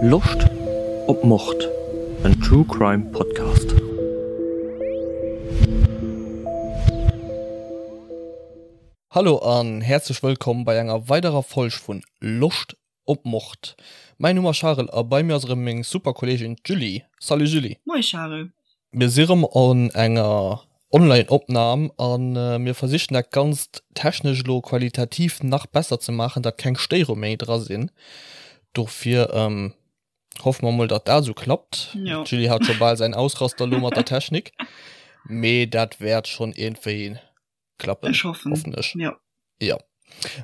Loscht op Mord? En True Crime Podcast. Hallo an häerzlech wëllkomm bei enger weiderer Folg vun Loscht op Mord. Mäin Numm ass Charel a bei mir ass erëm meng super Kolleegin d'Julie. Salut Julie. Moie Charel. Mir si rëm an enger Online Opnahm an mir versichen dat ganzt technesch elo qualitativ nach besser ze maachen, dat keng Stéierung méi dra sinn. Dofir hoffe mer mol dat dat esou klappt. D'Julie hat scho bal säin Ausraster elo mat der Technik, mee dat wäert schonn iergendwéi klappen. Ech hoffen. Hoffen ech. Jo. Jo.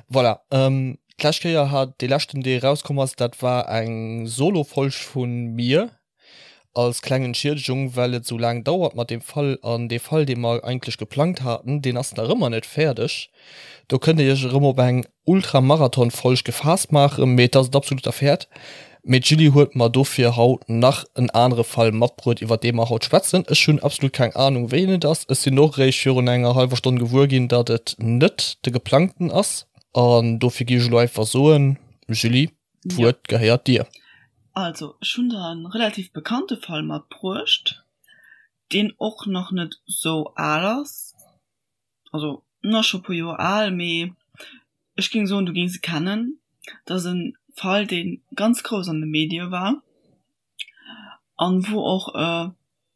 Voilà. Ähm, d'lescht Kéier hat, dee leschten, dee erauskomm ass, dat war eng Solo-Folg vu mir als kleng Entschiedegung, well et esou laang dauert mat deem Fall. An dee Fall, dee mer eigentlech geplangt haten, deen ass nach ëmmer net fäerdeg. Do kënnt Dir Iech erëm op eng Ultra-Marathon-Folg gefaasst maachen, mee et ass et absolut derwäert. Mee d'Julie huet mer dofir haut nach en anere Fall matbruet, iwwer dee mer haut schwätzen. Ech hunn absolut keng Anung, wéi en et ass. Ech sinn och eréischt virun enger hallwer Stonn gewuer ginn, datt et net de geplangten ass. An dofir gi ech elo einfach soen, Julie, d'Wuert gehéiert dir. Also, ech hunn der e relativ bekannte Fall matbruecht, deen och nach net sou al ass. Also en ass scho e puer Joer al, mee ech géing soen, du géings e kennen. Dat ass e Fall, dee ganz grouss an de Medie war an wou och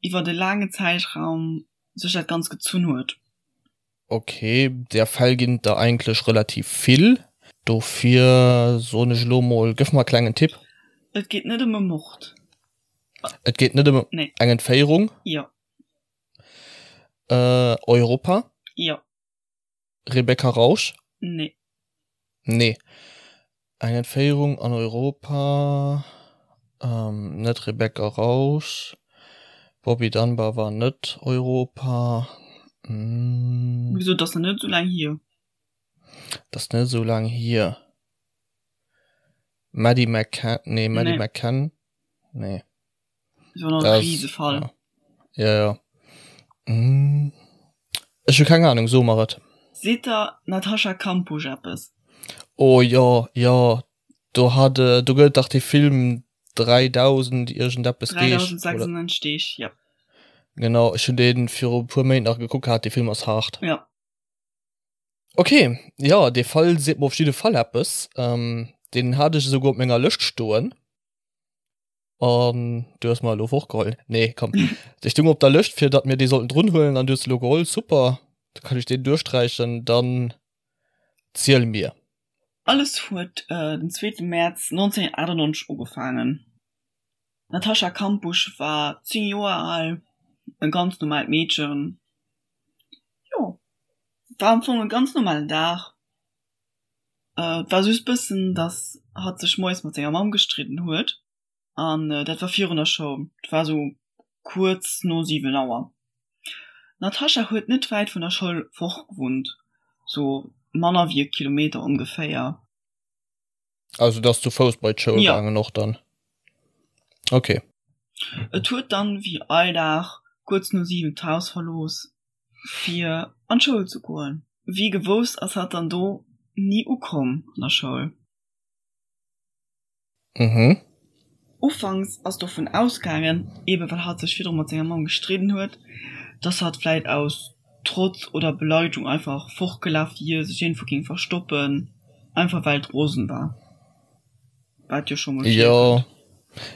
iwwert e laangen Zäitraum sech dat Ganzt gezunn huet. Ok, där Fäll ginn et der eigentlech relativ vill, dofir soen ech elo mol, gëff mer e klengen Tipp. Et geet net ëm e Mord. Et geet net ëm eng Entféierung? Jo. Äh, Europa? Jo. Rebecca Rausch? Nee. Nee. Eng Entféierung an Europa, ähm, net Rebecca Rausch. Bobby Dunbar war net Europa. Mm. Wéi gesot, dat ass nach net esou laang hier. Dat ass net esou laang hier. Maddie McCann, nee, Maddie nee. McCann, nee. Das war noch e Riesefall. Ja, ja. Mm. Ech hu keng Ahnung, so mer et. Seet der Natascha Kampusch eppes? Oh jo, jo, do hat, äh, do gëtt et dach dee Film 3000 iergendeppes Deeg. 3096 Deeg, jo. Genau, ech hunn dee viru e puer Méint nach gekuckt gehat, dee Film ass haart. Jo. Ok, jo, dee Fall seet mer op jidde Fall eppes. Ähm, deen hat ech esouguer op menger Lëscht stoen. An du hues mer elo fortgeholl. Nee, komm. Dee stung op der Lëscht, fir datt mir dee sollten drun huelen, an du hues se elo geholl. Super, da kann ech deen duerchsträichen. Dann ziel mir. Alles huet den zweete Mäerz 1998 ugefaangen. D'Natascha Kampusch war 10 Joer al, e ganz normaalt Meedchen. Jo, war am Fong e ganz normalen Dag. Et war just bëssen, dass hatt sech moies mat senger Mamm gestridden huet an dat war virun der Schoul. Et war sou kuerz no 7 Auer. D'Natascha huet net wäit vun der Schoul fort gewunnt, sou manner wéi e Kilometer ongeféier. Also et ass zu Fouss bei d'Schoul gaangen och dann? Ok. Et huet dann wéi all Dag kuerz no 7 d'Haus verlooss fir an d'Schoul ze goen. Wéi gewousst ass hatt dann do ni ukomm an der Schoul. Mhm. Ufanks ass dovun ausgaangen, ebe well hatt sech virdru mat senger Mamm gestridden huet, dass hatt vläit aus Trotz oder Beleidegung einfach fortgelaf wier, sech iergendwou géing verstoppen, einfach well et rosen war. Wat jo scho mol Jo,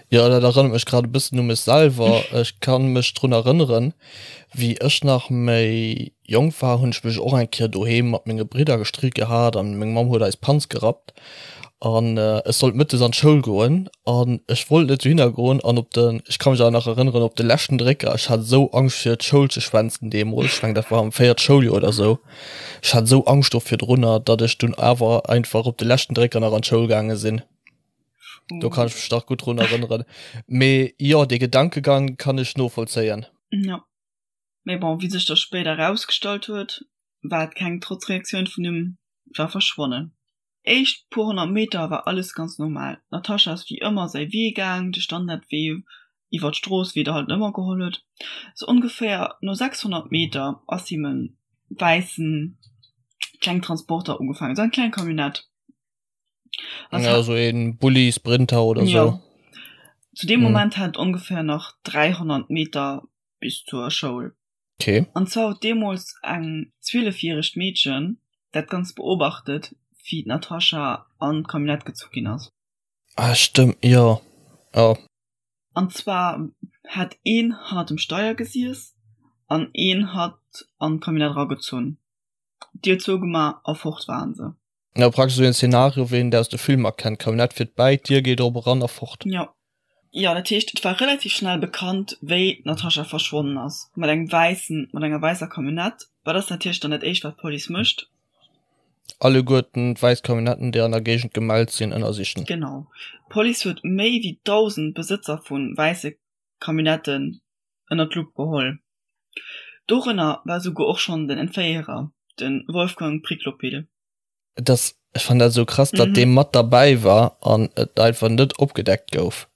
jo, dat erënnert mech grad e bëssen u mech selwer. Ech ka mech drun erënneren, wéi ech nach méi jonk war, hunn ech mech och eng Kéier doheem mat menge Bridder gestridde gehat an meng Mamm huet eis Panz gerappt an ech sollt mëttes an d'Schoul goen an ech wollt net dohinner goen an op de, ech ka mech awer nach erënneren, op de leschten Drécker, ech hat esou Angscht fir d'Schoul ze schwänzen deemools, ech mengen dat war am véiert Schouljoer oder esou, Ech hat esou Angscht do virdrunner, datt ech dunn awer einfach op de leschten Drécker nach an d'Schoul gaange sinn. Do kann ech mech nach gutt drun erënneren. Mee jo, dee Gedankegang kann ech novollzéien. Jo. Mee bon, wéi sech da spéider erausgestallt huet, war et keng Trotzreaktioun vun him, war verschwonnen. Éischt puer 100 Meter war alles ganz normal. D'Natascha ass wéi ëmmer säi Wee gaang, de Standardwee iwwer d'Strooss, wéi et halt ëmmer geholl huet. Sou ongeféier no 600 Meter ass him e wäissen kleng Transporter ugefaangen, sou eng kleng Camionnette. Ja, sou een Bulli, Sprinter oder sou. Jo. Zu deem Moment hat et ongeféier nach 300 Meter bis zur Schoul. Okay. An zwar huet deemools eng zwielefjäregt Meedchen dat Ganzt beobachtet, wéi d'Natascha an d'Camionnette gezu ginn ass. Ah, stëmmt, jo. Jo. An zwar hat een hannert dem Steier gesiess an een hat an d'Camionnette eragezunn, d'Dier zougemaach a fort waren se. Jo, praktesch esou een Szenario wéi een et aus de Filmer kennt, Camionnette fiert bäi, d'Dier geet op, eran a fort. Jo. Jo, dat heescht, et war relativ schnell bekannt, wéi d'Natascha verschwonnen ass, mat engem wäissen, mat enger wäisser Camionnette. Wat ass natierlech dann dat éischt, wat d'Police mécht? Alleguerten d'wäiss Camionnetten, déi an der Géigend gemellt sinn, ënnersichen. Genau. D'Police huet méi wéi 1.000 Besëtzer vu wäisse Camionnetten ënner d'Lupp geholl. Dorënner war souguer och schonn den Entféierer, de Wolfgang Priklopil. Et ass, ech fannen dat esou krass, datt dee mat derbäi war an et einfach net opgedeckt gouf.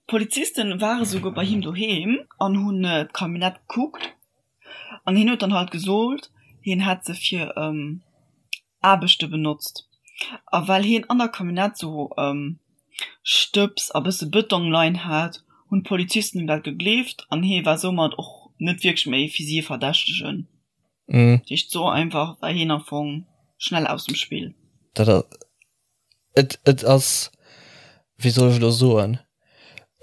D'Polizisten ware souguer bei him doheem an hunn d'Camionnette gekuckt an hien huet dann halt gesot, hien hätt se fir Aarbechte benotzt. A well hien an der Camionnette sou Stëbs a bësse Bëtong leien hat, hunn d'Polizisten him dat gegleeft an hie war soumat och net wierklech méi fir si e Verdächtegen. Dat heescht, sou einfach war hien am Fong schnell aus dem Spill. Dat ass, et, et ass, wéi soll ech elo soen,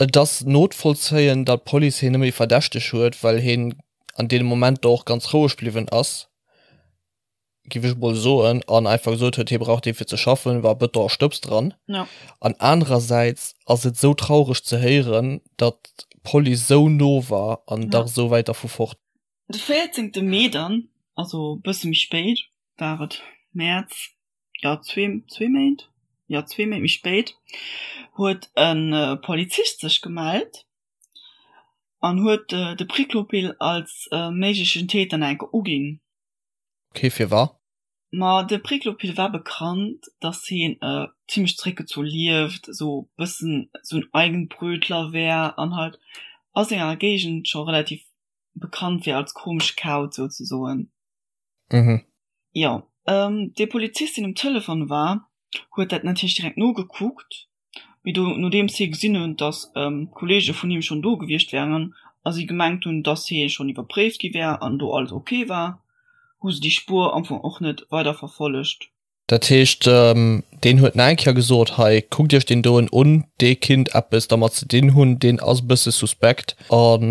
et ass notvollzéien, datt d'Police hien net méi verdächteg huet, well hien an deene Momenter och ganz roueg bliwwen ass. giff ech mol soen, an einfach gesot huet, hie brauch dee fir ze schaffen, war Bëton a Stëbs dran. Ja. An anerersäits ass et sou traureg ze héieren, datt d'Police sou no war an dach sou wäit dervu fort. De 14 Mee dann, also bësse méi spéit, war et Mäerz, jo zwee, zwee Méint, jo zwee Méint méi spéit, huet e Polizist sech gemellt an huet de Priklopil als méiglechen Täter nach eng Kéier uginn. Ok, firwat? Ma de Priklopil war bekannt, dass heen zimlech zréckgezu lieft, esou bëssen esou en Eigenbrötler wär an halt a senger Géigend scho relativ bekannt wär als komesche Kauz souzesoen. Mhm. Jo, dee Polizist deen um Telefon war, huet dat natierlech direkt nogekuckt Mee do, nodeems hie gesinn hunn, datt Kolleege vun him schonn do gewiescht wären a si gemengt hunn, datt hie schonn iwwerpréift gi wär an do alles ok war, hu se déi Spuer am Fong och net weider verfollegt. Dat heescht, deen huet nach eng Kéier gesot, hei, kuckt iech deen doen un, dee kinnt eppes dermat ze dinn hunn, deen ass e bësse suspekt. A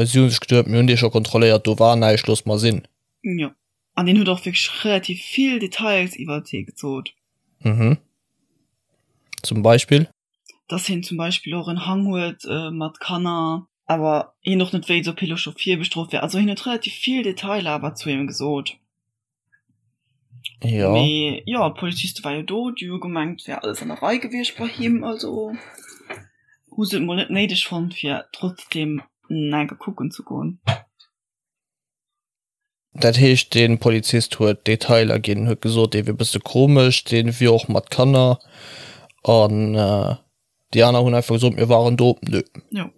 si hu sech geduet, mir hunn dee scho kontrolléiert, do war näischt, loosse mer sinn. Jo, an deen huet och wierklech relativ vill Details iwwert hie gesot. Mhm. Zum Beispill? Dass hien zum Beispill och en Hang huet mat Kanner, awer hien och net wéilt, ob hie lo scho virbestrooft wär. Also hien huet relativ vill Detailer awer zu him gesot. Jo. Mee jo, d'Poliziste war jo do, déi hu gemengt, et wär alles an der Rei gewiescht bei him, also hu se et mol net néideg fonnt, fir trotzdeem enke kucken ze goen. Dat heescht, dee Polizist huet Detailer ginn, huet gesot, dee wier e bësse komesch, dee wier och mat Kanner. An déi aner hunn einfach gesot, mir waren do. Nö. Jo.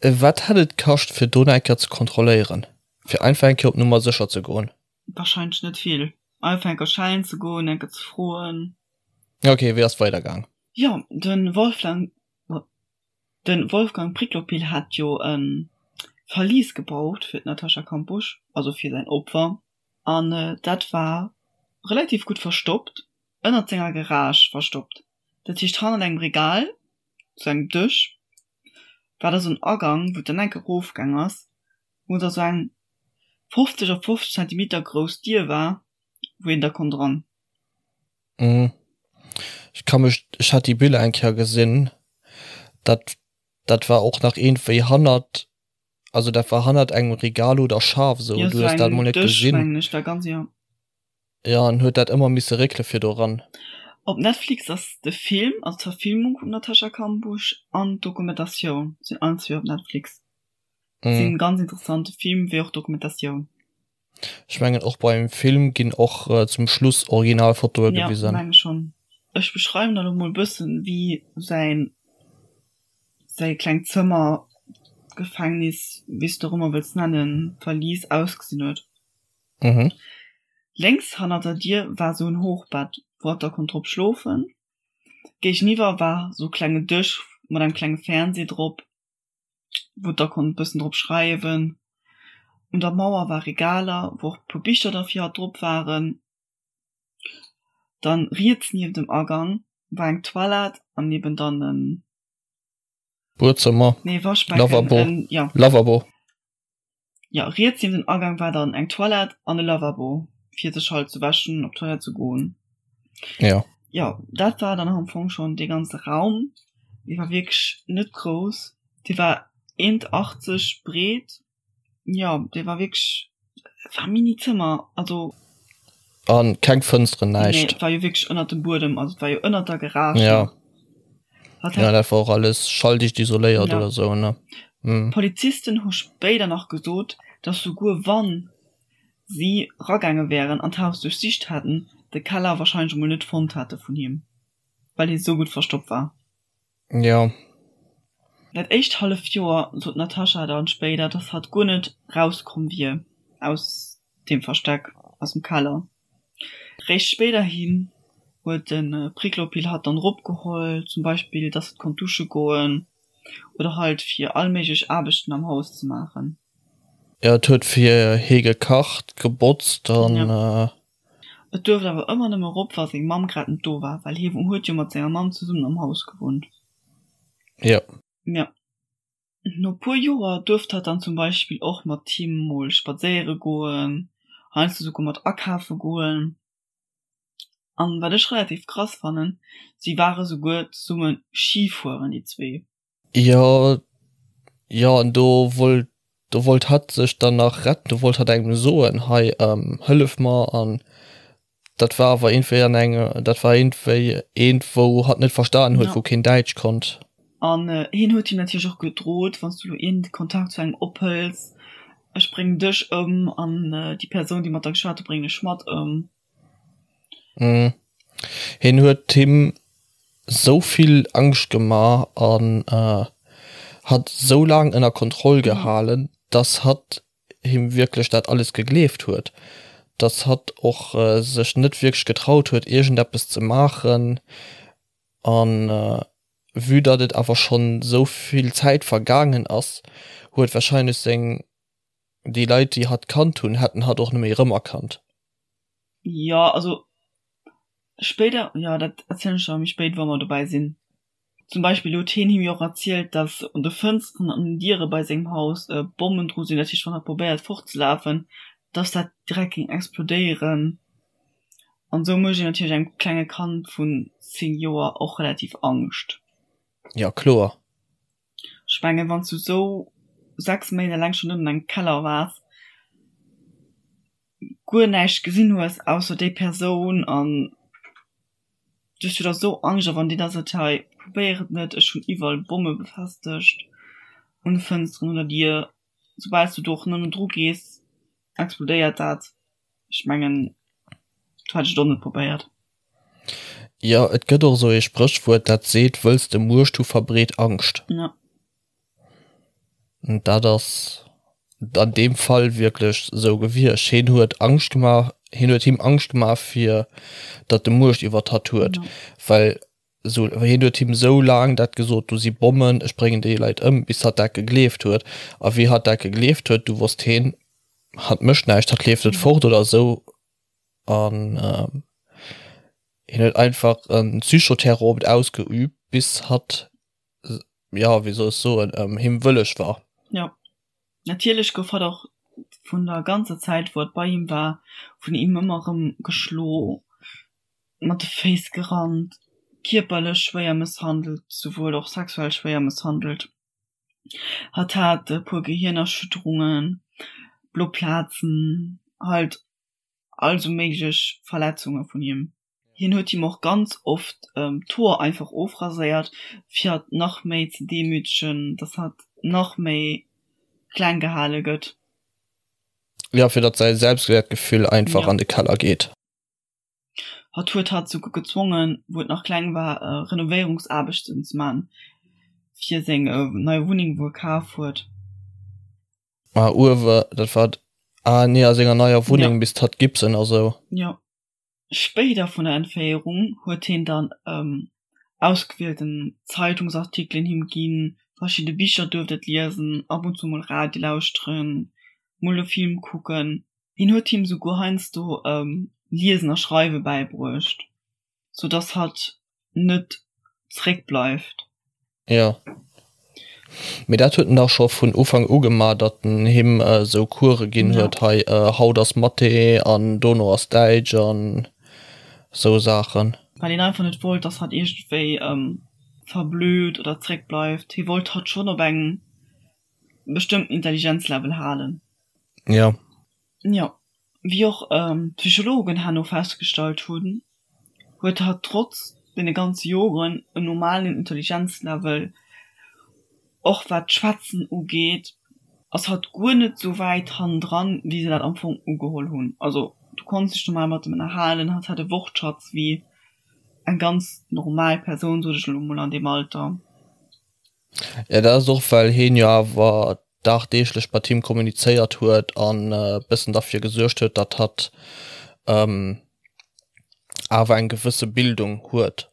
Wat hätt et kascht, fir do nach eng Kéier ze kontrolléieren? Fir einfach eng Kéier op Nummer sécher ze goen? Warscheinlech net vill. Einfach eng Kéier schellen ze goen, eng Kéier ze froen. Ok, wéi ass et weidergaang? Jo, de Wolfgang De Wolfgang Priklopil hat jo e Verlies gebaut fir d'Natascha Kampusch, also fir säin Opfer, an dat war relativ gutt verstoppt, ënnert senger Garage verstoppt. Dat heescht hannert engem Regal, sou engem Dësch, war da sou en Agang, wou et dann enk erofgaang ass, wou da sou eng 50 op 50 Zentimeter grouss Dier war, wou een da konnt eran. Mhm. Ech ka mech, ech hat déi Biller eng Kéier gesinn, dat dat war och nach iergendwéi hannert, also dat war hannert engem Regal oder Schaf esou, Jo, du sou hues dat engem mol net Dësch, gesinn. mengen ech, war ganz, jo. Jo, an huet dat ëmmer misse réckele fir do ran. Op Netflix ass de Film, also d'Verfilmung vum Natascha Kampusch an d'Dokumentatioun sinn allen zwee op Netflix. Sinn ganz interessant, de Film wéi och d'Dokumentatioun. Ech mengen och beim Film ginn och zum Schluss Originalfotoe gewisen. Jo, menge schonn. Ech beschreiwen der lo mol bëssen wéi säin säi klengt Zëmmer, Gefängnis, wéi s de och ëmmer wëlls nennen, Verlies ausgesinn huet. Mhm. Lénks hannert der Dier war sou en Hochbett, wou hatt da konnt drop schlofen. Géigeniwwer war sou klenge Dësch mat engem klenge Fernseh drop. Wou et da konnt e bëssen drop schreiwen. Un der Mauer war Regaler, wou och e puer Bicher da fir hatt drop waren. Dann riets nieft dem Agang war eng Toilette an eben dann en. Buedzëmmer, Nee, Waschbecken, Lavabo, en, ja. Lavabo. Jo, riets nieft dem Agang war dann eng Toilette an e Lavabo, fir sech halt ze wäschen, op d'Toilette ze goen. Ja. Jo, dat war dann am Fong schonn dee ganze Raum. Dee war wierklech net grouss. Dee war 1,80 breet. Jo, dee war wierklech, et war e Mini-Zëmmer, also. An keng Fënsteren, näischt. Nee, et war jo wierklech ënnert dem Buedem, also et war jo ënnert der Garage. Ja. Ja, dat war och alles schalldicht isoléiert ja. oder sou, ne? Mhm. Polizisten hu spéider nach gesot, datt souguer wann si ragaange wären an d'Haus duerchsicht hätten, de Keller warscheinlech emol net fonnt hätte vun him, well hie sou gutt verstoppt war. Jo. Dat éischt halleft Joer sot d'Natascha dann spéider, dass hatt guer net rauskomm wier aus deem Versteck, aus dem Keller. Réischt spéiderhin huet de Priklopil hatt dann eropgeholl, zum Beispill dass hatt konnt dusche goen oder halt fir all méiglech Aarbechten am Haus ze maachen. Jo, et huet fir hie gekacht, gebotzt an. Jo. Et duerft awer ëmmer nëmme erop, wa seng Mamm grad net do war, well hie huet jo mat senger Mamm zesummen am Haus gewunnt. Jo. Jo. No puer Joer duerft hatt dann zum Beispill och mat him mol spadséiere goen, heiansdo souguer mat akafe goen. An wat ech relativ krass fannen, si ware souguer zesumme Ski fueren, déi zwee. Jo, jo, an do wollt, do wollt hatt sech dann nach retten, do wollt hatt engem soen, hei, hëllef mer an dat war awer iergendwéi an eng, dat war iergendwéi eent, wou hatt net verstanen huet, wou keen Däitsch konnt. An hien huet him natierlech och gedrot, wann s du elo iergend Kontakt zu engem ophëls, ech bréngen dech ëm an déi Persoun, déi mat der geschwat huet, bréngen ech mat ëm. Hien huet him sou vill Angscht gemaach an hatt sou laang ënner Kontroll gehalen, dass hatt him wierklech dat alles gegleeft huet, dass hatt och sech net wierklech getraut huet iergendeppes ze maachen. An vue datt et awer schonn sou vill Zäit vergaangen ass, huet warscheinlech seng, déi Leit déi hatt kannt hunn, hätten hatt och net méi erëmerkannt. Jo, also spéider, jo dat erzielen ech der méi spéit, wa mer dobäi sinn. Zum Beispill huet hien him jo och erzielt, datt un de Fënsteren an den Diere bei sengem Haus Bommen dru sinn, dat heescht wann hatt probéiert fortzelafen, datt dat direkt géing explodéieren. An esou mécht een natierlech engem klenge Kand vun 10 Joer och relativ Angscht. Jo, kloer. Ech mengen, wann s du esou 6 Méint eleng schonn ënnen engem Keller waars, guer näischt gesinn hues ausser déi Persoun an du hues jo da sou Angscht a wann déi da seet, hei probéier et net, ech hunn iwwerall Bomme befestegt un de Fënsteren, un der Dier, soubal s du do och nëmmen dru gees, explodéiert dat. Ech mengen, do hätt ech et och net probéiert. Jo, et gëtt och esou ee Spréchwuert, dat seet, Wëlls de Muecht hu, verbreet Angscht. Ja. An dat ass an deem Fall wierklech esou gewiescht. Hien huet Angscht gemaach, hien huet him Angscht gemaach, fir datt e Muecht iwwert hatt huet, well esou, hien huet him esou laang dat gesot, do si Bommen, ech bréngen déi Leit ëm, bis hatt dat gegleeft huet. A wéi hatt dat gegleeft huet, du wosst hien, hatt mécht näischt, hatt leeft net fort oder esou. An hien huet einfach e Psychoterror op et ausgeüübt, bis hatt, jo, wéi soll ech soen, him wëlleg war. Jo, natierlech gouf hatt och vun der ganzer Zäit, wou hatt bei him war, vun him ëmmer erëm geschlo, mat de Féiss gerannt, kierperlech schwéier mësshandelt, souwuel och sexuell schwéier mësshandelt. Hatt hat e puer Gehirnerschütterungen, blo Plazen, halt all sou méiglech Verletzunge vun him. Hien huet him och ganz oft d'Hoer einfach ofraséiert, fir hatt nach méi ze demütegen, dass hatt nach méi kleng gehale gëtt. Jo, fir datt säi Selbstwäertgefüll einfach an de Keller geet. Hatt huet hatt souguer gezwongen, wou et nach kleng war, Renovéierungsaarbechten ze man fir seng nei Wunneng, wou e kaf huet. Ah uewe, dat war, ah nee, a senger neier Wunneng, ja. Bis d'hatt Gipsen a sou. Jo. Spéider vun der Entféierung huet hien dann ausgewielten Zeitungsartikelen him ginn. Verschidde Bicher duerft et liesen, ab und zu mol Radio lauschteren, mol e Film kucken. Hien huet him souguer heiansdo Liesen a Schreiwe bäibruecht, sou dass hatt net zréck bleift. Jo, mee dat huet en dach scho vun Ufank u gemaach, datt en him esou Course ginn huet, hei haut ass Mathé an dono ass Däitsch an esou Saachen. Well hien einfach net wollt, datt hatt iergendwéi verblöd oder zréck bleift. Hie wollt hatt schonn op engem bestëmmten Intelligenzlevel halen. Jo. Jo, wéi och d'Psychologen herno festgestallt hunn, huet hatt trotz deene ganze Joren en normalen Intelligenzlevel. Och wat d'Schwätzen ugeet, ass hatt guer net sou wäit hannendran, wéi se dat am Fong ugeholl hunn. Also du konns dech normal mat em ënnerhalen, hatt hat e Wortschatz wéi eng ganz normal Persoun, sot ech elo mol, an deem Alter. Jo, dat ass och well heen jo awer dagdeeglech mat him kommunizéiert huet an e bëssen derfir gesuergt huet, datt hatt awer eng gewësse Bildung huet.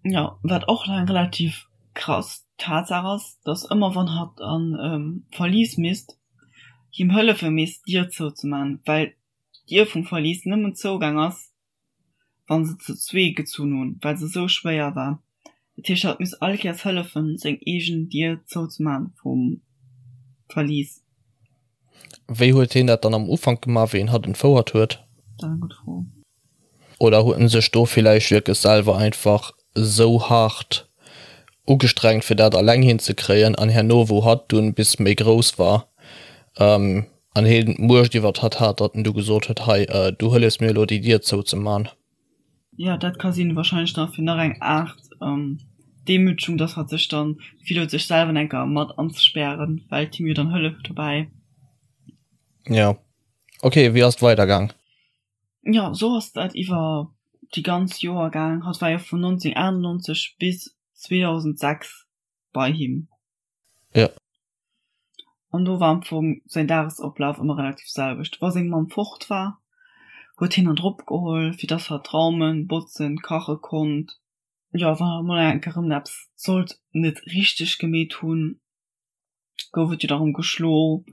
Jo, wat och eng relativ krass Tatsaach ass, datt ëmmer wann hatt an e Verlies misst, him hëllefe misst d'Dier zouzeman, well d'Dier vum Verlies nëmmen zougaang ass, wann se zu zwee gezunn hunn, well se esou schwéier war. Dat heescht, hatt misst all Kéiers hëllefen, seng eegen Dier zouzemaachen vum Verlies. Wéi huet heen dat dann am Ufank gemaach, wéi en hatt entfouert huet? Dat ass eng gutt Fro. Oder huet en sech do villäicht wierklech selwer einfach esou haart ugestrengt, fir dat alleng hinzekréien, an herno, wou hatt dunn bis méi grouss war, An heen d'Muecht iwwert hatt hat, datt en du gesot huet, Hei, du hëllefs mir elo, déi Dier zouzeman. Jo, dat ka sinn. Wahrscheinlech dann fir nach eng Aart Demütegung, datt hatt sech dann d'Gefill huet, sech selwer enker mat anzespären, well et him jo dann hëlleft dobäi. Jo. Ok, wéi ass et weidergaang? Jo, sou ass dat iwwer déi ganz Joer gaang. Hatt war jo vun 1998 bis 2006 bei him. Jo. An do war am Fong säin Dagesoflaf ëmmer relativ selwecht. Wa seng Mamm fort war, huet hien hatt eropgeholl, fir dass hatt raumen, botzen, kache konnt. Jo, wann hatt emol eng Kéier erëm eppes sollt net richteg gemeet hunn, gouf et jo da rëm geschlo,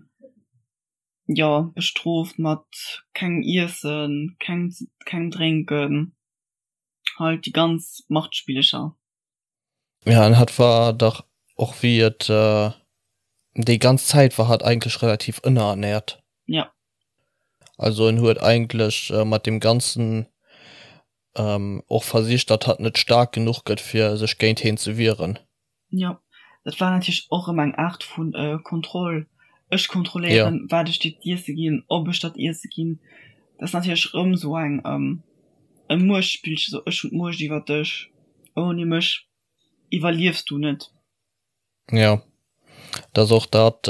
jo, bestrooft mat kengem Iessen, kengem kengem Drénken, halt déi ganz Machtspillecher. Ja, an hatt war dach och wéi et déi ganz Zäit war hatt eigentlech relativ ënnerernährt. Ja. Also en huet eigentlech mat deem Ganzen och versicht, datt hatt net staark genuch gëtt fir sech géint heen ze wieren. Jo, dat war natierlech och erëm eng Aart vu Kontroll. Ech kontrolléieren, wat ech dir z'iesse ginn, ob ech der z'iesse ginn. Dat ass natierlech erëm esou eng e Muechtspillchen, esou ech hunn d'Muecht iwwer dech, ouni mech iwwerliefs du net. Jo, dat ass och dat,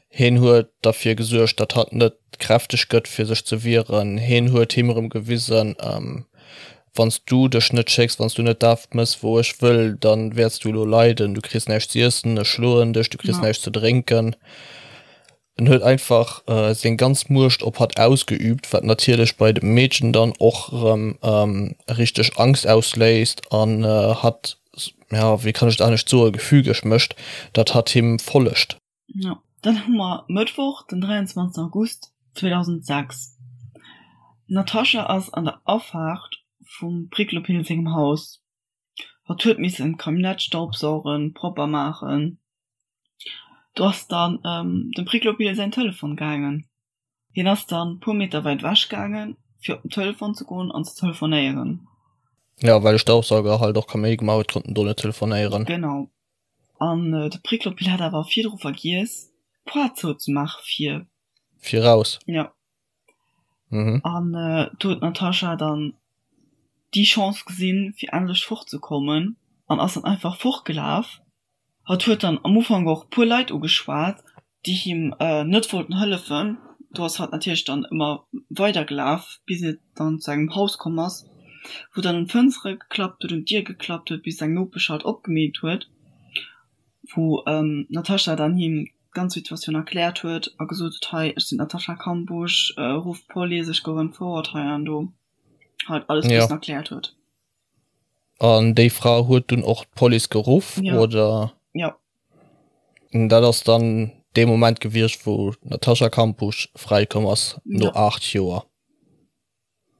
hien huet derfir gesuergt, datt hatt net kräfteg gëtt fir sech ze wieren. Hien huet him erëm gewisen, wann s du dech net schécks, wann s du net dat mëss wou ech wëll, dann wäerts du elo leiden, du kriss näischt z'iessen, ech schloen dech, du kriss näischt ze drénken. En huet einfach seng ganz Muecht op hatt ausgeübt, wat natierlech bei dem Meedchen dann och erëm richteg Angst ausléist an hatt, ja, wéi kann ech et anescht soen, gefügeg mécht, datt hatt him follegt. Jo, dann hu mer Mëttwoch, den 23 August 2006. D'Natascha ass an der Afaart vum Priklopil sengem Haus. Hatt huet missen d'Camionnette staubsaugen, propper maachen. Do ass dann dem Priklopil säin Telefon gaangen. Hien ass dann puer Meter wäit ewech gaangen, fir op den Telefon ze goen an ze telefonéieren. Jo, well de Staubsauger halt och Kaméidi gemaach huet, konnt en do net telefonéieren. Genau. An de Priklopil hat awer virdru vergiess, d'Poart zouzemaache fir. Fir raus. Jo. An do huet d'Natascha dann déi Chance gesinn, fir endlech fortzekommen an ass dann einfach fortgelaf. Hatt huet dann am Ufank och puer Leit ugeschwat, déi him net wollten hëllefen. Do ass hatt natierlech dann ëmmer weider gelaf, bis et dann zu engem Haus komm ass, wou dann un d'Fënstere geklappt huet, un d'Dier geklappt huet, bis eng Nopesch halt opgemeet huet, wou d'Natascha dann him d'ganz Situatioun erkläert huet a gesot huet, hei ech sinn d'Natascha Kampusch, rufft d'Police, ech gouf entfouert hei an do, halt alles bëssen erkläert huet. An déi Fra huet dunn och d'Police geruff, oder? Jo. Dat ass dann dee Moment gewiescht, wou d'Natascha Kampusch fräikomm ass, no 8 Joer.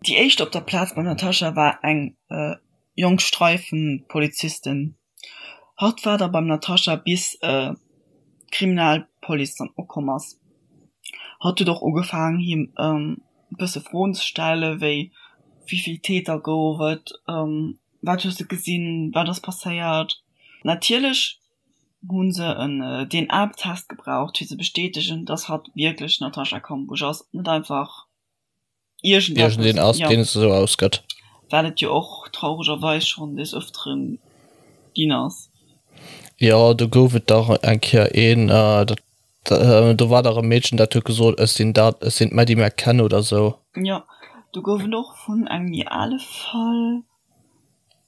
Déi éischt op der Plaz beim Natascha war eng jonk Streifenpolizistin. Hatt war da beim Natascha bis d'Kriminalpolice dann ukomm ass. Hatt huet och ugefaangen him e bësse Froen ze stellen, wéi wéivill Täter gouf et, wat hues de gesinn, wat ass passéiert. Natierlech hu se en DNA-Test gebraucht fir ze bestätegen, dass hatt wierklech d'Natascha Kampusch ass, net einfach Iergendeen ass, deen et esou ausgëtt. Wat et jo och trauregerweis schonn des Ëfteren ginn ass. Jo, do gouf et dach eng Kéier een, dat, do war dach e Meedchen, dat huet gesot, ech sinn dat, ech sinn d'Maddie McCann oder esou. Jo, do gouf et och vun engem méi ale Fall,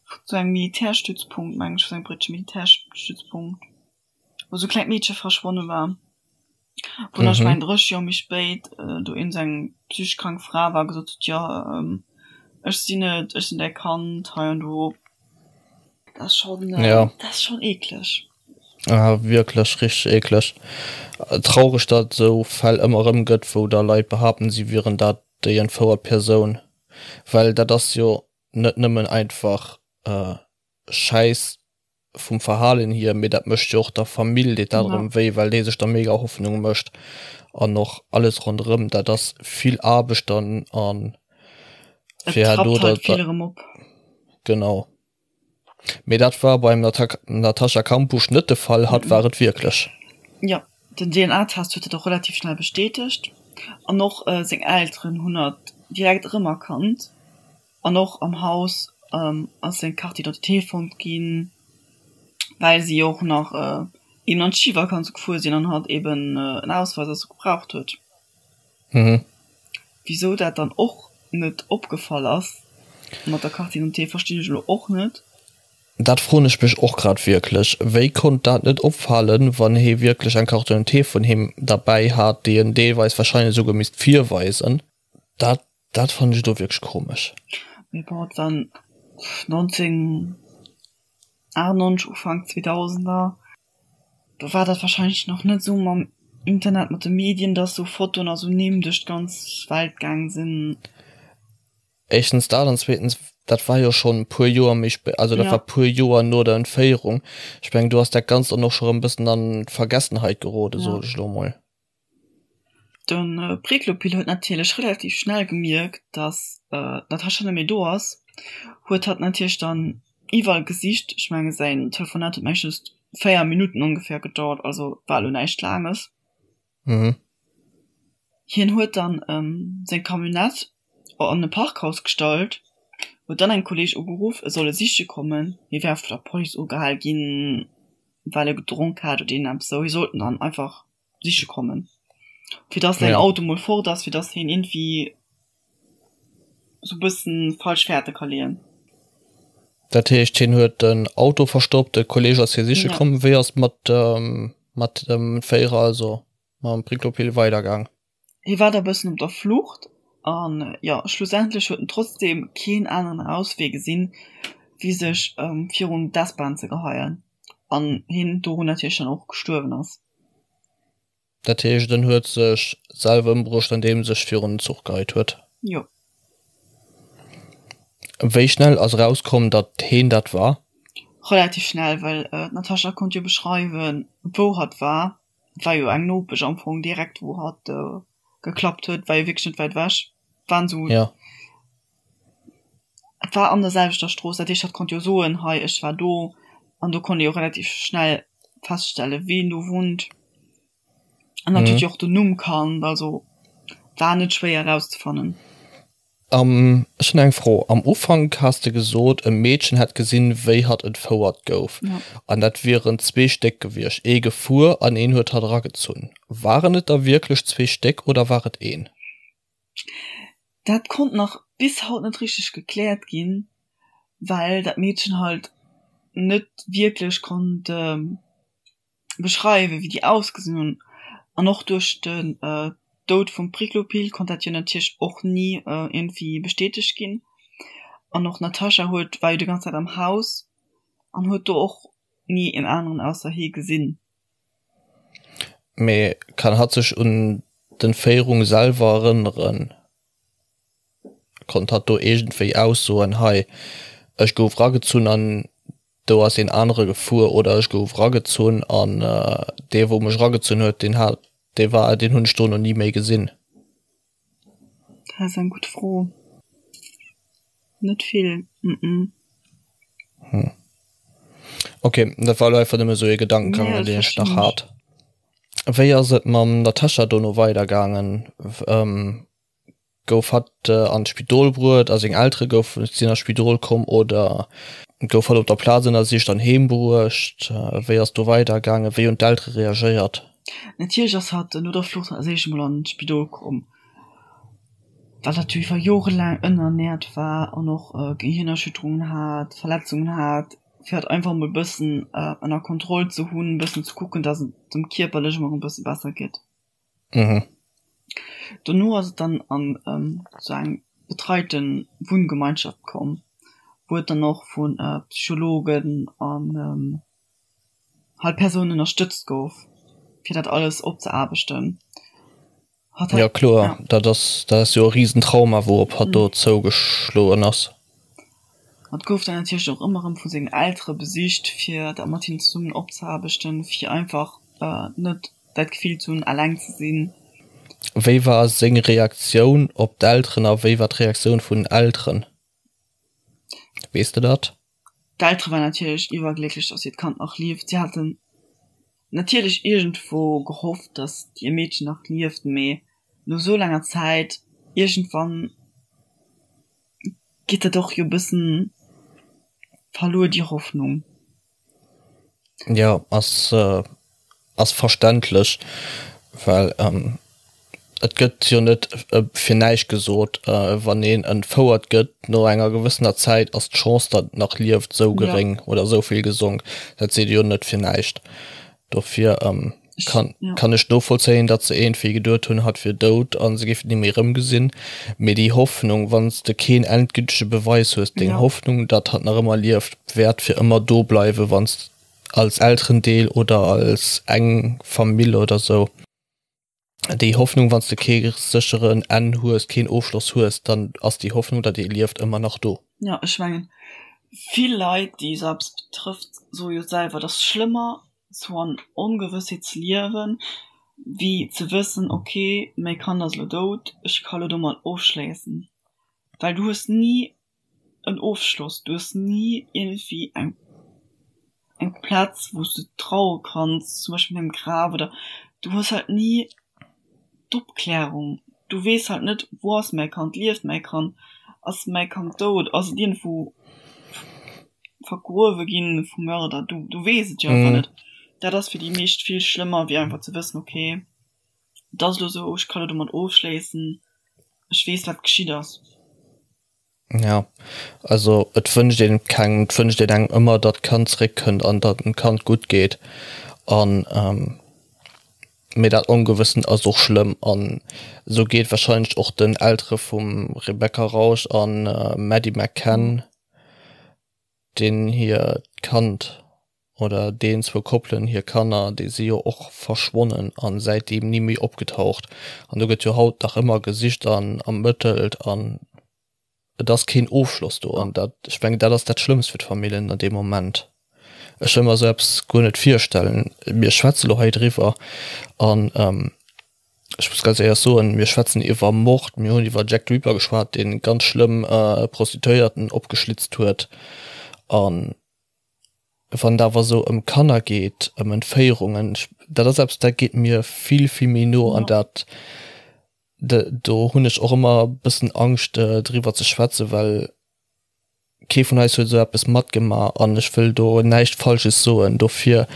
vu sou engem Militärstützpunkt, meng ech, vu sou engem britesche Militärstützpunkt, wou sou e klengt Meedche verschwonne war. Wou nach, ech mengen, 30 Joer méi spéit do iergend sou eng psychesch krank Fra war a gesot huet, jo, ech sinn et, ech sinn däi Kand, hei an do. Dat ass schonn, dat ass schonn eekleg. Ah, wierklech richteg eekleg. Traureg, datt et esou Fäll ëmmer erëm gëtt, wou da Leit behaapten, si wieren dat déi entfouert Persoun. Well dat ass jo net nëmmen einfach Schäiss vum Verhalen hier, mee dat mécht jo och der Famill deet dat erëm wéi, well déi sech da mega Hoffnung mécht an och alles ronderëm. Dat ass vill Aarbecht dann an fir herno da. Vill erëm op. Genau. Mee dat war beim Natascha Kampusch net de Fall, hatt war et wierklech. Jo, den DNA-Test huet dat och relativ schnell bestätegt an och seng Elteren hunn hatt direkt erëmerkannt. An och am Haus ass seng Carte d'identité fonnt ginn, well si och nach eben an d'Schivakanz gefuer sinn an hatt eben en Ausweis also gebraucht huet. Wisou dat dann och net opgefall ass mat der Carte d'identité verstinn ech elo och net. Dat froen ech mech och grad wierklech. Wéi konnt dat net opfalen, wann hee wierklech eng Carte d'identité vun him derbäi hat, déi en deelweis wahrscheinlech esouguer misst virweisen? Dat Dat fannen ech do wierklech komesch. Mee bon, et war 1998, Ufank 2000er, do war dat wahrscheinlech nach net esou mam Internet, mat de Medien, dass esou Fotoen a sou Nimm duerch d'ganz Welt gaang sinn. Éischtens dat an zweetens, dat war jo schonn e puer Joer méi spéit, also dat war puer Joer no der Entféierung. Ech mengen, do ass dat Ganzt dann och scho rëm e bëssen an d'Vergessenheit geroden, soen ech elo mol. De Priklopil huet natierlech relativ schnell gemierkt, datt d'Natascha net méi do ass, huet hatt natierlech dann iwwerall gesicht. Ech menge säin Telefonat huet meeschtens 4 Minutten ongeféier gedauert, also war elo näischt Laanges. Hien huet dann seng Camionnette an e Parkhaus gestallt, huet dann engem Kolleeg ugeruff, e soll e siche kommen, hie wär vun der Police ugehal ginn, well e gedronk hat oder iergendeppes esou. Hie sollt en dann einfach siche kommen. Fir dass säin Auto mol fort ass, fir dass hien iergendwéi sou bëssen falsch Fährte ka leeën. Dat heescht, hien huet den Auto verstoppt, de Kolleeg ass hie siche komm. Wéi ass et mat mat dem Féierer, also mam Priklopil weidergaang? Hie war da bëssen op der Flucht an jo, schlussendlech huet en trotzdeem keen aneren Auswee gesinn, wéi sech virun d'S-Bahn ze geheien an hien dorun natierlech dann och gestuerwen ass. Dat heescht en huet sech selwer ëmbruecht andeem sech virun den Zuch geheit huet? Jo. Wéi schnell ass erauskomm datt heen dat war? Relativ schnell, well d'Natascha konnt jo beschreiwen wou hatt war. Et war jo eng Nopesch am Fong direkt wou hatt geklappt huet, war jo wierklech net wäit ewech. Waren sou, Ja. et war an der selwechter Strooss, dat heescht hatt konnt jo soen, hei ech war do an do konnt ee jo relativ schnell feststellen ween do wunnt an hatt huet jo och den Numm kannt, also war net schwéier erauszefannen. Am, ech hunn eng Fro, Am Ufank has de gesot, e Meedchen hätt gesinn, wéi hatt entfouert gouf, an dat wieren zwee Stéck gewiescht, ee gefuer an een huet hatt eragezunn. Waren et der wierklech zwee Stéck oder war et een? Dat konnt nach bis haut net richteg gekläert ginn, well dat Meedchen halt net wierklech konnt beschreiwen, wéi déi ausgesinn hunn. An och duerch den Doud vum Priklopil konnt dat jo natierlech och ni iergendwéi bestätegt ginn. An och d'Natascha huet, war jo déi ganz Zäit am Haus an huet do och ni een aneren ausser hee gesinn. Mee kann hatt sech un d'Entféierung selwer erënneren? Konnt hatt do iergendwéi aussoen, hei, ech gouf ragezunn an do ass een anere gefuer oder ech gouf ragezunn an dee wou mech ragezunn huet, deen hat, dee war, deen hunn ech dono ni méi gesinn? Dat ass eng gutt Fro. Net vill, mm. Hm. Ok, dat war elo einfach nëmme sou ee Gedankengang, nee, deen ech nach hat. Wéi ass et mam Natascha dono weidergaangen? Ähm, gouf hatt an d'Spidol bruet a seng Eltere goufen, sinn an d'Spidol komm oder gouf hatt op der Plaz ënnersicht an heem bruecht? Wéi ass do weidergaangen? Wéi hunn d'Eltere reagéiert? Natierlech ass hatt no der Flucht als éischt emol an d'Spidol komm, well hatt jo iwwer jorelaang ënnerernäert war an och Gehirnerschütterungen hat, Verletzungen hat, fir hatt einfach emol e bëssen ënner Kontroll ze hunn, e bëssen ze kucken, datt et em kierperlech emol e bësse besser geet. Dono ass et dann an esou eng betreite Wunngemeinschaft komm, wou et dann och vu Psychologen an halt Persounen ënnerstëtzt gouf, fir dat alles opzeaarbechten. Hatt hat, ja kloer, ja. Dat ass, dat ass jo e Risentrauma, wourop hatt do zougeschloen ass. Hatt gouf dann natierlech och ëmmer erëm vu sengen Eltere besicht, fir dat mat hinnen zesummen opzeaarbechten, fir einfach net dat Gefill ze hunn, eleng ze sinn. Wéi war seng Reaktioun op d'Elteren a wéi war d'Reaktioun vun den Elteren? Weess de dat? D'Eltere waren natierlech iwwerglécklech, dass hiert Kand nach lieft. Si haten natierlech iergendwou gehofft, dass hir Meedchen nach lieft, mee no esou laanger Zäit, iergendwann geet dat och jo e bëssen verluer, déi Hoffnung. Jo, ass ass verständlech, well et gëtt jo net fir näischt gesot, wann een entfouert gëtt, no enger gewëssener Zäit ass d'Chance, datt et nach lieft, esou geréng oder esou vill gesonk. Dat seet ee jo net fir näischt. Dofir kann kann ech novollzéien, datt se iergendwéi geduet hunn, hatt wier dout a se géifen et ni méi erëmgesinn. Mee déi Hoffnung, wann s de keen endgültege Beweis hues, deng Hoffnung, datt hatt nach ëmmer lieft, wäert fir ëmmer do bleiwen, wann s als Elterendeel oder als eng Famill oder sou, déi Hoffnung, wann s de kee sécheren Enn hues, keen Ofschloss hues, dann ass déi Hoffnung, datt ee lieft, ëmmer nach do. Jo, ech mengen, vill Leit, déi esou eppes betrëfft, soe jo selwer, et ass schlëmmer, sou an Ongewëssheet ze liewen, wéi ze wëssen, ok, mäi Kand ass elo dout, ech ka elo domat ofschléissen. Well du hues ni en Ofschloss, du hues ni iergendwéi eng eng Plaz wou s de traue kanns, zum Beispill mat engem Graf oder du hues halt ni d'Opklärung, du weess halt net, wou ass mäi Kand, lieft mäi Kand, ass mäi Kand dout, ass et iergendwou vergruewe ginn vum Mörder, du du weess et jo einfach net. Dat ass fir déi meescht vill schlëmmer wéi einfach ze wëssen, okay et ass elo esou, ech ka elo domat ofschléissen, ech weess wat geschitt ass. Ja, also et wënscht een kengem, et wënscht een engem ëmmer, datt d'Kand zeréckkënnt an datt dem Kand gutt geet. An mee dat Ongewëssen ass och schlëmm an esou geet warscheinlech och den Eltere vum Rebecca Rausch a Maddie McCann, deen hiert Kand oder deen zwou Koppelen hir Kanner, déi si jo och verschwonnen a säitdeem ni méi opgetaucht. An do gëtt jo haut nach ëmmer gesicht an ermëttelt an et ass keen Ofschloss do. An dat, ech mengen, dat ass dat Schlëmmst fir d'Familljen an deem Moment. Ech wëll mer esou eppes guer net virstellen. Mir schwätze lo hei driwwer an ech muss ganz éierlech soen, mir schwätzen iwwer Mord, mir hunn iwwer Jack the Ripper geschwat, dee ganz schlëmm Prostituéierten opgeschlitzt huet an Wann et awer esou ëm Kanner geet, ëm Entféierungen, dat ass eppes, dat geet mir vill, vill méi no an dat, do hunn ech och ëmmer e bëssen Angscht driwwer ze schwätzen, well kee vun eis huet esou eppes matgemaach an ech wëll do näischt Falsches soen. Dofir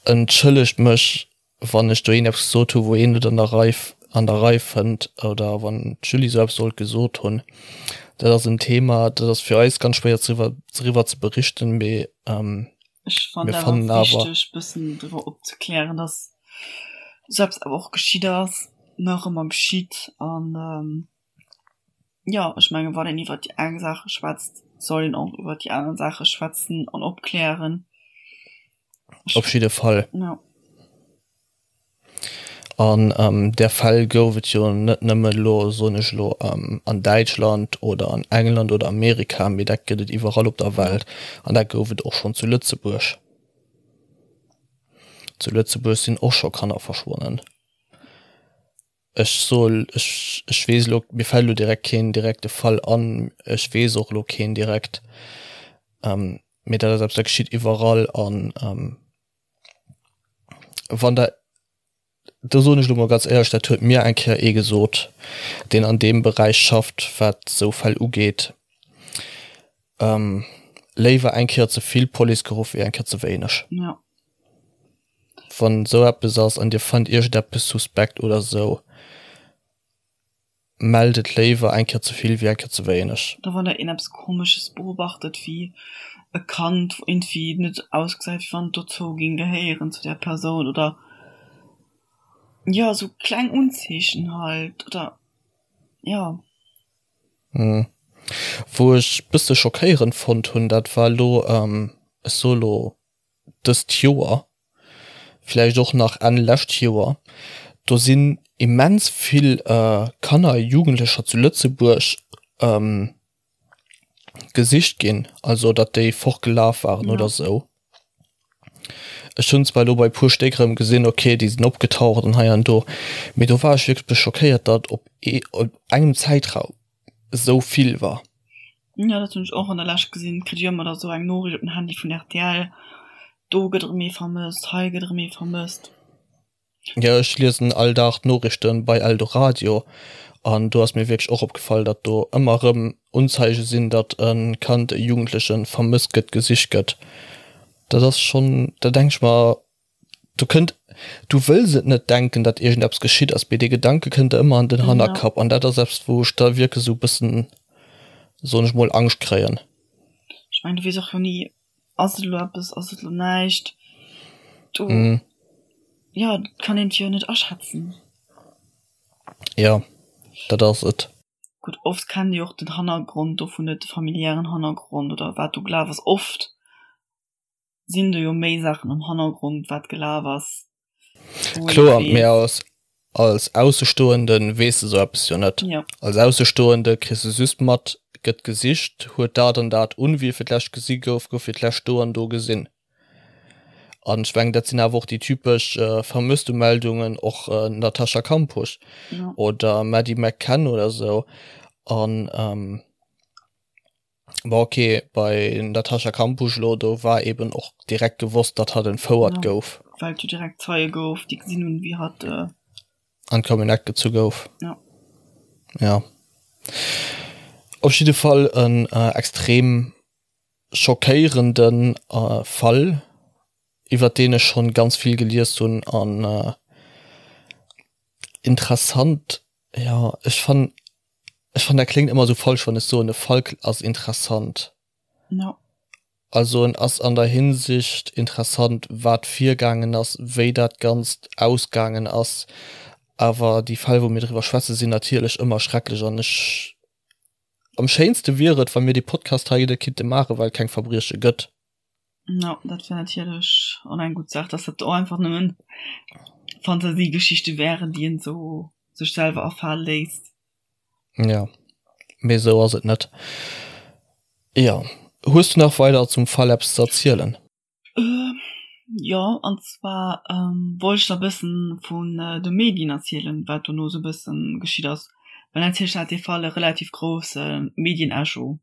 entschëllegt mech Wann ech do een eppes gesot hu wou een net an der Rei an der Rei fënnt oder wann d'Julie esou eppes sollt gesot hunn, dat ass en Thema, dat ass fir eis ganz schwéier driwwer driwwer ze berichten, mee Ech fannen mir fannen awer wichteg bëssen driwwer opzeklären, dass esou eppes awer och geschitt ass, nach ëmmer geschitt an jo, ech mengen wann een iwwer déi eng Saache schwätzt, soll een och iwwer déi aner Saache schwätzen an opklären. Op jidde Fall. Ja. An där Fäll gouf et jo net nëmmen elo, soen ech elo, an Däitschland oder an England oder Amerika, mee dat gëtt et iwwerall op der Welt. An dat gouf et och schonn zu Lëtzebuerg. Zu Lëtzebuerg sinn och scho Kanner verschwonnen. Ech soe, ech, ech weess elo, mir fält elo direkt keen direkte Fall an, ech weess och elo keen direkt, mee dat ass eppes, dat geschitt iwwerall. An wann der, do soen ech elo mol ganz éierlech, dat huet mir eng Kéier ee gesot, deen an deem Beräich schafft, wat esou Fäll ugeet, léiwer eng Kéier ze vill Police geruff wéi eng Kéier ze wéineg. Ja. Wann esou eppes ass an dir fannt iergendeppes suspekt oder esou, Mellt et léiwer eng Kéier ze vill wéi eng Kéier ze wéineg. Oder wann der een eppes komesches beobachtet wéi e Kand wou iergendwéi net ausgesäit wéi wann et dozou ging gehéieren zu där Persoun oder jo esou kleng Unzeechen halt oder jo. Wou ech bësse schockéierend fonnt hunn, dat war elo, ech soe lo dëst Joer, vläicht och nach Enn lescht Joer, do sinn immens vill Kanner a Jugendlecher zu Lëtzebuerg gesicht ginn, also datt déi fortgelaf waren oder esou. Ech hunn zwar elo bei e puer Stéck erëm gesinn, okay, déi sinn opgetaucht an hei an do, mee do war ech wierklech e bësse schockéiert, datt op engem Zäitraum esou vill war. Jo, dat hunn ech och an der Lescht gesinn. Kritt ech ëmmer da sou eng Noriicht op den Handy vun rtl, do gëtt erëm ee vermësst, hei gëtt erëm ee vermësst. Jo, ech liesen all Dag d'Noriichten bei Eldoradio an do ass mir wierklech och opgefall, datt do ëmmer erëm Unzeige sinn, datt e Kand, e Jugendlechen vermësst gëtt, gesicht gëtt. Dat ass schonn, da denk ech mer, Du kënnt, du wëlls et net denken, datt iergendeppes geschitt ass, mee dee Gedanke kënnt der ëmmer an den Hannerkapp an dat ass eppes, wou ech da wierklech esou e bëssen, soen ech mol, Angscht kréien. Ech mengen, du weess och jo ni, ass et elo eppes, ass et elo näischt. Du, jo, dat kann een jo net aschätzen. Jo, dat ass et. Gutt, oft kennt ee jo och den Hannergrond dovun net, de familiären Hannergrond oder wat do gelaf ass. Oft sinn do jo méi Saachen am Hannergrond wat gelaf ass. Kloer, mee als als Aussestoenden weess de sou eppes jo net. Ja. Als Aussestoende kriss de just mat, gëtt gesicht, huet dat an dat un, wie fir d'lescht gesi gouf, gouf fir d'lescht do an do gesinn. An ech mengen, dat sinn awer och déi typesch Vermësstemeldungen, och Natascha Kampusch ja. oder Maddie McCann oder sou. An Bon ok, bei Natascha Kampusch elo, do war eben och direkt gewosst, datt hatt entfouert Ja, gouf. well et jo direkt Zeie gouf, déi gesinn hunn, wéi hatt. An d'Camionnette gezu gouf. Ja. Ja. Op jidde Fall en extrem schockéierende Fall, iwwert deen ech schonn ganz vill gelies hunn an interessant, jo, ech fannen, Ech fannen dat kléngt ëmmer esou falsch wann ech soen e Fall ass interessant. No. Also en ass an der Hinsicht interessant wat virgaangen ass, wéi dat Ganzt ausgaangen ass, awer déi Fäll wou mir driwwer schwätze sinn natierlech ëmmer schrecklech an ech am schéinste wier et wa mir dee Podcast hei net kinnte maache well et keng Verbrieche gëtt. No, dat wär natierlech och eng gutt Saach, dass dat och einfach nëmmen Fantasiegeschichte wären, déi een esou sech selwer afale léisst. Ja, mee esou ass et net. Jo, hues du nach weider zum Fall eppes ze erzielen? Jo, an zwar wollt ech der e bëssen vun de Medien erzielen, wat dono esou e bëssen geschitt ass, well natierlech hat dee Fall e relativ grousse Medienecho.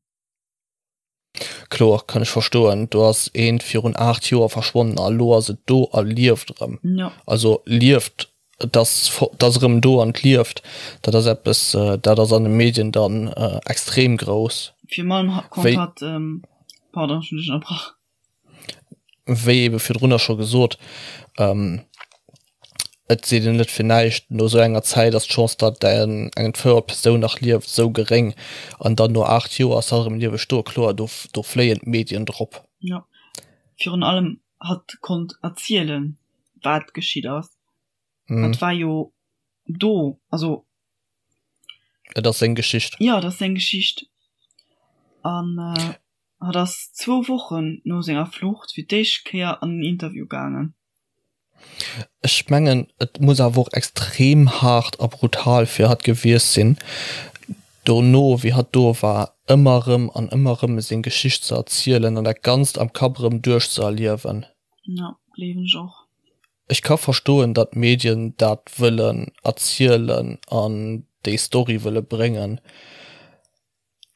Kloer, kann ech verstoen. Do ass eent virun 8 Joer verschwonnen a lo ass et do a lieft erëm. Jo. Also lieft, et ass et ass erëm do an et lieft. Dat ass eppes, dat ass an de Medien dann extrem grouss. Virun allem konnt hatt, pardon, ech hunn dech ënnerbrach. Wéi ebe virdrunner scho gesot, et seet een net fir näischt, no esou enger Zäit ass d'Chance, datt eng entfouert Persoun nach lieft, esou geréng. An dann no 8 Joer ass hatt erëm lieweg do. Kloer, do do fléien d'Medien drop. Jo, virun allem hatt konnt erzielen, wat geschitt ass. Hatt war jo do, also. Et ass seng Geschicht. Jo, et ass seng Geschicht. An Hatt ass zwou Wochen no senger Flucht fir d'éischt Kéier an en Interview gaangen. Ech mengen et muss awer och extrem haart a brutal fir hatt gewiescht sinn, dono wéi hatt do war, ëmmer erëm an ëmmer erëm seng Geschicht ze erzielen an dat Ganzt am Kapp erëm duerchzeerliewen. Jo, gleewen ech och. Ech ka verstoen, datt d'Medien dat wëllen erzielen an déi Story wëlle bréngen.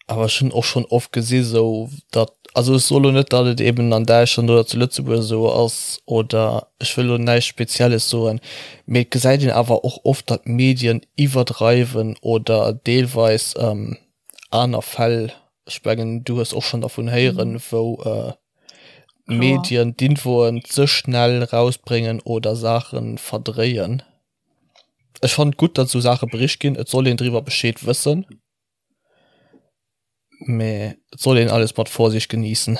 Awer ech hunn och schonn oft gesi sou datt, also ech soe lo net, datt et eben an Däitschland oder zu Lëtzebuerg esou ass oder ech wëll lo näischt Spezielles soen, mee et gesäit een awer och oft, datt d'Medien iwwerdreiwen oder deelweis aner Fäll, ech mengen du hues och schonn dervun héieren, wou d'Medien d'Infoen ze schnell rausbréngen oder Saache verdréien. Ech fannen et gutt, datt esou Saache bericht ginn, et soll een driwwer Bescheed wëssen. Mee et soll een alles mat Vorsicht genießen.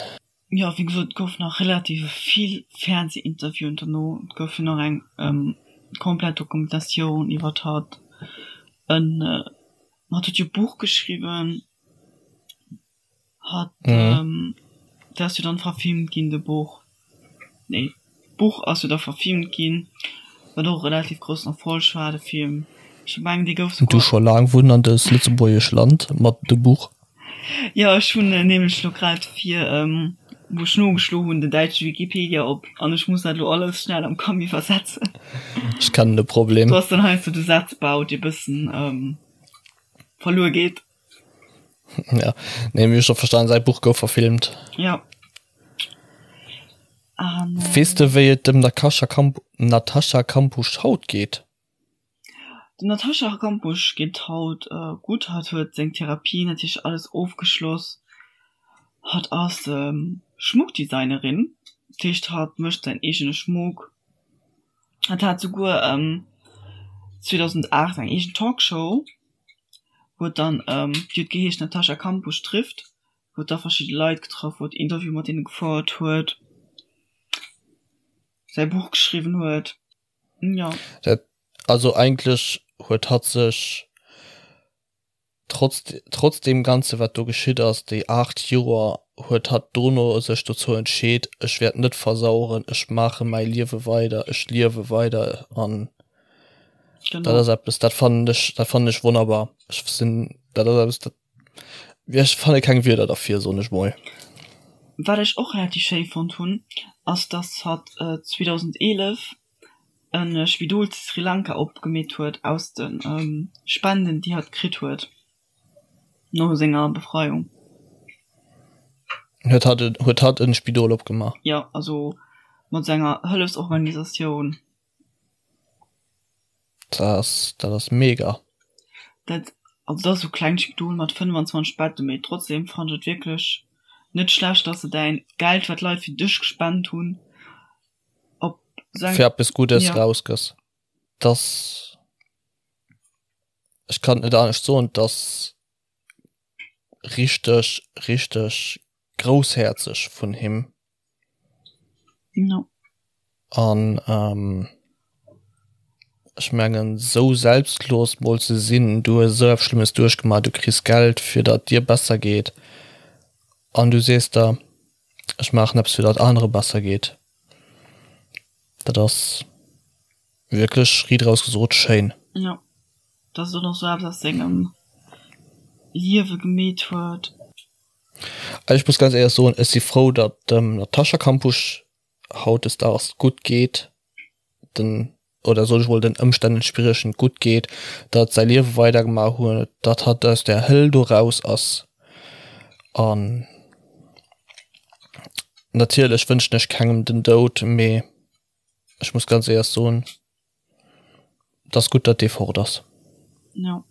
Jo, wéi gesot, et gouf nach relativ vill Fernseh-Interviewen dono. Et gouf jo nach eng komplett Dokumentatioun iwwert hatt. En hatt huet jo e Buch geschriwwen. Hat dat ass jo dann verfilmt ginn de Buch, nee d'Buch ass jo da verfilmt ginn, wat och e relativ groussen Erfolg war de Film. Ech mengen dee gouf souguer. Du scho laang wunn an dëst lëtzebuergesch Land mat de Buch? Jo ech hunn nämlech lo grad fir wou ech nogeschlo hunn den däitsche Wikipedia op an ech muss dat lo alles schnell am Kamm iwwersetzen. Ech kennen de Problem. Do ass dann heiansdo de Sazbau dee bëssen verluer geet. Ja, nee, mir scho verstan säi Buch gouf verfilmt. Ja. An, äh, Weess de wéi et dem Natascha Kamp Natascha Kampusch haut geet? Dem Natascha Kampusch geet haut äh, gutt. Hatt huet seng Therapie natierlech alles ofgeschloss. Hatt ass ähm, Schmuckdesignerin, dat heescht hatt mécht säin eegene Schmuck. Hatt hat souguer ähm, 2008 eng eegen Talkshow. Huet dann, déi huet geheescht Natascha Kampusch trifft, huet da verschidde Leit getraff, huet Interviewe mat deene gefouert huet, säi Buch geschriwwen huet, jo. Dat, also eigentlech huet hatt sech trotz, trotz deem Ganze wat do geschitt ass, déi 8 Joer, huet hatt dono sech dozou entscheet, ech wäert net versaueren, ech maache mäi Liewe weider, ech liewe weider an Genau. Dat ass eppes, dat fannen ech, dat fannen ech wonnerbar. Ech sinn, dat ass eppes, dat, ech fanne keng Wierder derfir, soen ech mol. Wat ech och relativ schéi fonnt hunn, ass dass hatt 2011 e Spidol zu Sri Lanka opgemeet huet aus de Spenden déi hatt kritt huet no senger Befreiung. Huet hatt, huet hatt e Spidol opgemaach? Jo, also mat senger Hëllefsorganisatioun. Dat ass, dat ass mega. Dat, also dat ass esou klengt Spidol mat 25 Betten, mee trotzdem fannen ech et wierklech net schlecht, dass de däin Geld, wat d'Leit fir dech gespent hunn, op esou eng. Fir eppes Guddes rausgëss. Dass, ech kann et net anescht soen, dass richteg, richteg groussherzeg vun him. No. An ähm, ech mengen sou selbstlos mol ze sinn, du hues esou eppes Schlëmmes duerchgemaach, du kriss Geld fir datt dir besser geet an du sees der, ech maachen eppes fir datt anere besser geet. Dat ass wierklech riit eraus gesot schéin. Jo, dass en och sou eppes aus sengem Liewe gemeet huet. Also ech muss ganz éierlech soen, ech si frou, datt dem Natascha Kampusch hautdesdaags gutt geet, den, oder soll ech mol den Ëmstänn entspriechend gutt geet, datt säi Liewe weidergemaach huet, datt hatt aus där Höll do raus ass. An natierlech wënschen ech kengem den Doud, mee ech muss ganz éierlech soen, Et ass gutt, datt dee fort ass. Jo.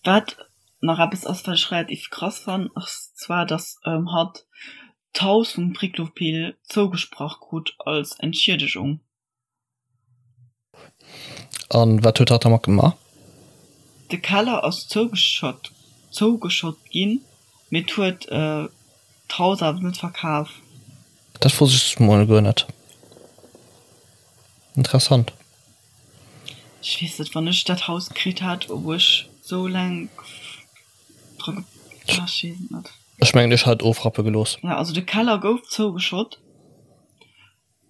Wat nach eppes ass, wat ech relativ krass fannen, ass zwar, datt hatt d'Haus vum Priklopil zougesprach krut als Entschiedegung. An wat huet hatt dermat gemaach? De Keller ass zougeschott zougeschott ginn, mee et huet d'Haus awer net verkaf. Dat wosst ech mol guer net. Interessant. Ech weess net, wann ech dat Haus kritt hätt, ob ech sou laang dra ge, ah ech weess et net. Ech mengen ech hätt et ofrappe gelooss. Ja, also de Keller gouf zougeschott.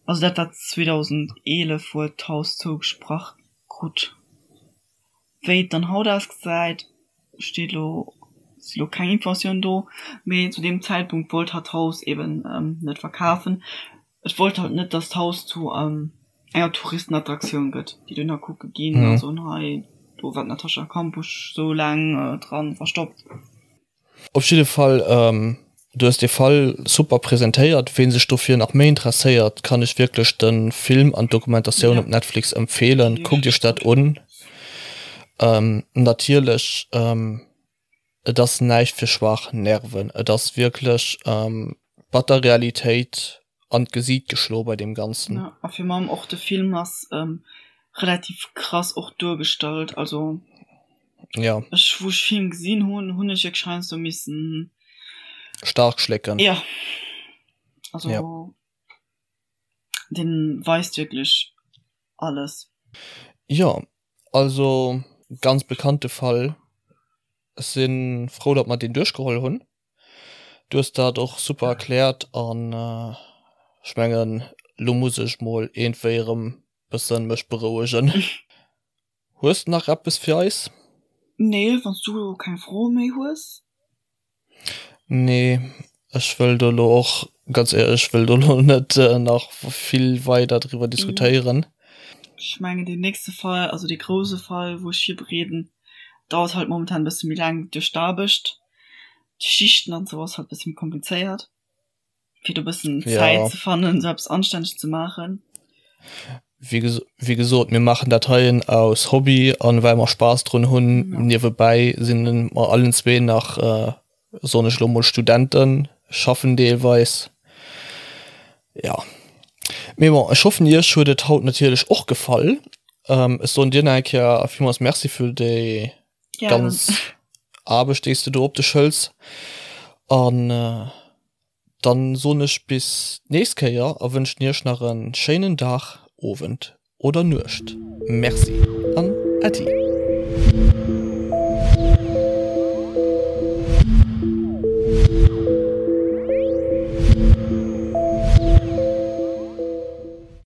Also dat war 2011 wou et d'Haus zougesprach krut. Wéi et dann haut ausgesäit, steet elo, si lo keng Informatiounen do, mee zu deem Zäitpunkt wollt hatt d'Haus eben net verkafen. Et wollt halt net, datt d'Haus zu enger Touristenattraktioun gëtt, déi dohinner kucke ginn a soen, hei do war d'Natascha Kampusch sou laang dran verstoppt. Op jidde Fall, du hues dee Fall super presentéiert. Ween sech dofir nach méi interesséiert, kann ech wierklech de Film an d'Dokumentatioun op Netflix empfeelen. Kuckt iech dat un. Natierlech, et ass näischt fir schwaach Nerven. Et ass wierklech batter Realitéit an d'Gesiit geschloe bei deem Ganzen. Ja, a virun allem och de Film ass relativ krass och duergestallt. Also ja. ech, wou ech Film gesinn hunn, hunn ech wierklech heiansdo missen Stark schlécken. Ja. Also ja. Den weist wierklech alles. Ja, also ganz bekannte Fall. Ech si frou, datt mer deen duerchgeholl hunn. Du hues dat och super erkläert an ech mengen lo muss ech mol iergendwéi erëm bëssen mech berouegen. Hues de nach eppes fir eis? Nee, wann s du elo keng Froe méi hues. Nee, ech wëll do elo och, ganz éierlech, ech wëll do elo net nach vill weider driwwer diskutéieren. Ech mengen deen nächste Fall, also dee grouse Fall wou ech virbereeden, dauert halt momentan e bësse méi laang duerch d'Aarbecht. D'Schichten an sou ass halt bësse méi komplizéiert fir do bëssen Zäit ze fannen sou eppes anstänneg ze maachen. Wéi wéi gesot, mir maachen dat heien aus Hobby an well mer Spaass drun hunn. Niewebäi sinn mer allen zwee nach, soen ech elo mol, Studenten, schaffen deelweis. Jo, mee bon, ech hoffen iech huet et haut natierlech och gefall. Ech soen dir nach eng Kéier villmools Merci fir déi ganz Aarbecht déi s de do op dech hëls an dann soen ech bis d'nächst Kéier a wënschen iech nach e schéinen Dag, Owend oder Nuecht. Merci an Äddi.